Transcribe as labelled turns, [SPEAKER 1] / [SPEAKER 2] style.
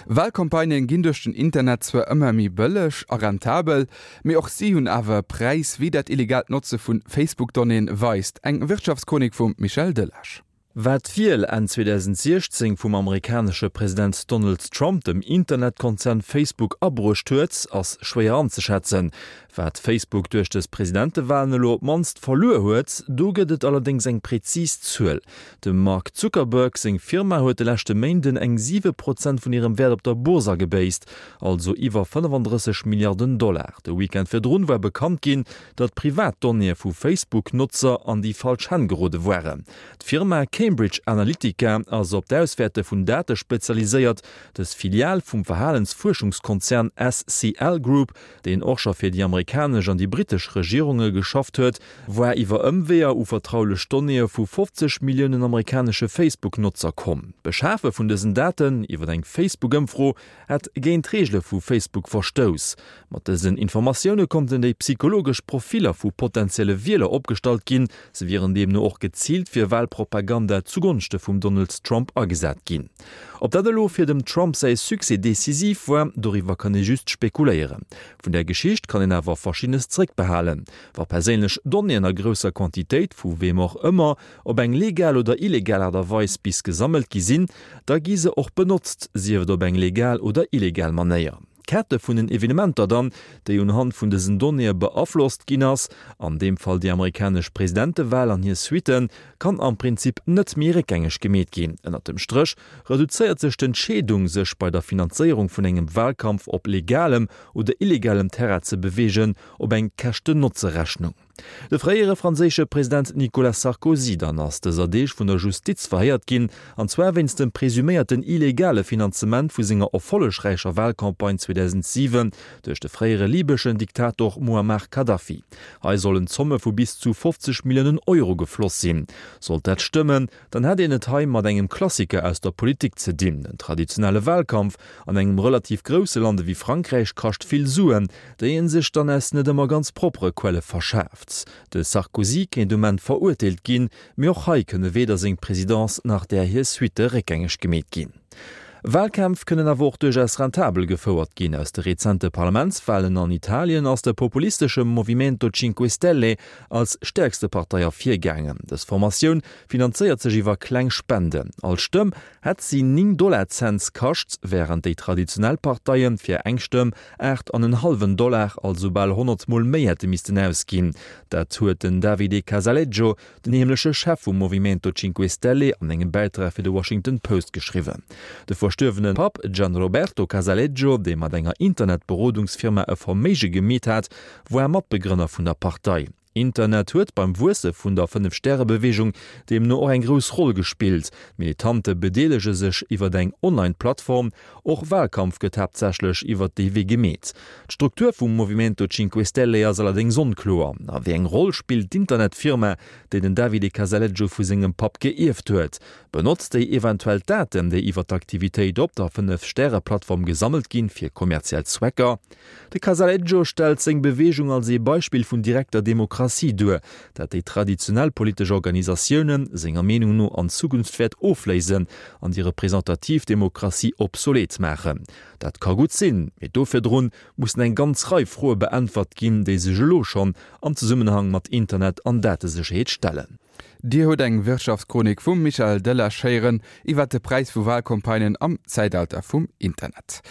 [SPEAKER 1] Walcampagnen ginn duerch den Internet zwar ëmmer méi bëlleg a rentabel, mee och si hunn awer e Präis, wéi dat illegaalt Notze vu Facebook-Donnéeën weist. Eng Wirtschaftschronik vum Michel Delage.
[SPEAKER 2] Wat d'Wiel Enn 2016 vum amerikanesche President Donald Trump dem Internetkonzern Facebook abruecht huet, ass schwéier anzeschätzen. Wat Facebook duerch dës Presidentewalen elo op d'mannst verluer huet, do gëtt et allerdéngs eng prezis Zuel. Dem Mark Zuckerberg seng Firma huet de leschte Méinden eng 7 Prozent vun hirem Wäert op der Bourse agebéisst, also iwwer 35 Milliarden Dollar. De Weekend virdrun war bekannt ginn, datt privat Donnéeë vu Facebook-Notzer an déi falsch Hänn gerode waren. D'Firma Cambridge Analytica ass op d'Auswäerte vun Date spezialiséiert. Dës Filial vum Verhalensfuerschungskonzern SCL Group, deen och scho fir déi amerikanesch an déi brittesch Regierunge geschafft huet, war iwwer Ëmweeër u vertraulech Donnéeë vu 50 Milliounen amerikanesche Facebook-Notzer komm. D'Beschafe vun dësen Daten iwwer eng Facebook-Ëmfro hätt géint d'Reegele vu Facebook verstouss. Mat dësen Informatioune konnten déi psychologesch Profiller vu potentielle Wieler opgestallt ginn. Se wieren deemno och geziilt fir Walpropaganda zugonschte vum Donald Trump agesat ginn. Ob dat elo fir dem Trump säi Succès decisiv war, doriwwer kann ee just spekuléieren. Vun där Geschicht kann een awer Verschiddenes zeréckbehalen. Wa perséinlech Donnéeën a grousser Quantitéit, vu weem och ëmmer, op eng legal oder illegal Aart a Weis bis gesammelt gi sinn, da gi se och benotzt, sief et op eng legal oder illegal Manéier. D'Kette vun den Evenementer dann, déi unhand vun dësen Donnéeë beaflosst ginn ass, an deem Fall déi amerikanesch Presidentewal an hir Suitten, kann am Prinzip net méi réckgängeg gemeet ginn. Ënnert dem Stréch reduzéiert sech d'Entscheedung, sech bei der Finanzéierung vun engem Walkampf op legalem oder illegalem Terrain ze beweegen, op eng Käschten-Notze-Rechnung. De fréiere franséische President Nicolas Sarkozy dann ass dëser Deeg vun der Justiz verhéiert ginn, an zwar wéinst dem presuméierten illegale Finanzement vu senger erfollegräicher Walcampagne 2007 duerch de fréiere libeschen Diktator Muammar Kadhafi. Hei sollen Zomme vu bis zu 50 Milliounen Euro gefloss sinn. Sollt dat stëmmen, dann hätt een et hei mat engem Klassiker aus der Politik ze dinn. En traditionelle Wahlkampf an engem relativ grousse Land ewéi Frankräich kascht vill Suen, déi ee sech dann aus net ëmmer ganz proppere Quelle verschaaft. De Sarkozy kéint um Enn verurteelt ginn, mee och hei kënne weder seng Presidence nach där hir Suitte réckgängeg gemeet ginn. Wahlkämpf kënnen awer och duerchaus rentabel gefouert ginn. Aus de rezente Parlamentswahlen an Italien ass de populistesche Movimento Cinque Stelle als stäerkste Partei ervirgaangen. Dës Formatioun finanzéiert sech iwwer kleng Spenden. All Stëmm hätt si 9 Dollar-Cents kascht, wärend déi traditionell Parteie fir eng Stëmm 8 an en hallwen Dollar, also bal 100 Mol méi hätte missten ausginn. Dat huet den Davide Casaleggio, Den heemleche Chef vum Movimento Cinque Stelle an engem Bäitrag fir de Washington Post geschriwwen. De verstuerwene Papp Gianroberto Casaleggio, dee mat enger Internetberodungsfirma e Verméige gemeet hat, war Matbegrënner vun der Partei. Internet huet beim Wuesse vun der Fënnef-Stäre-Beweegung deemno och eng grouss Roll gespillt. D'Militante bedeelege sech iwwer eng Online-Plattform, Och Wahlkampf gëtt haaptsächlech iwwert dee Wee gemeet. D'Struktur vum Movimento Cinque Stelle ass allerdéngs onkloer. A wéi eng Roll spillt d'Internetfirma, déi den Davide Casaleggio vu sengem Papp geierft huet? Benotzt déi eventuell d'Daten, déi iwwer d'Aktivitéit op der Fënnef-Stäre-Plattform gesammelt ginn, fir kommerziell Zwecker? De Casaleggio stellt seng Beweegung als ee Beispill vun direkter Demokratie duer, dat déi traditionell politesch Organisatioune senger Meenung no an Zukunft wäert ofléisen an déi representativ Demokratie obsolet maachen. Dat ka gutt sinn, mee do virdrun mussen eng ganz Rei Froe beäntwert ginn, déi sech elo schonn am Zesummenhang mat Internet an Datesécherheet stellen.
[SPEAKER 1] Dir hutt eng Wirtschaftschronik vum Michael Delage héieren iwwert de Präis vu Walcampagnen am Zäitalter vum Internet.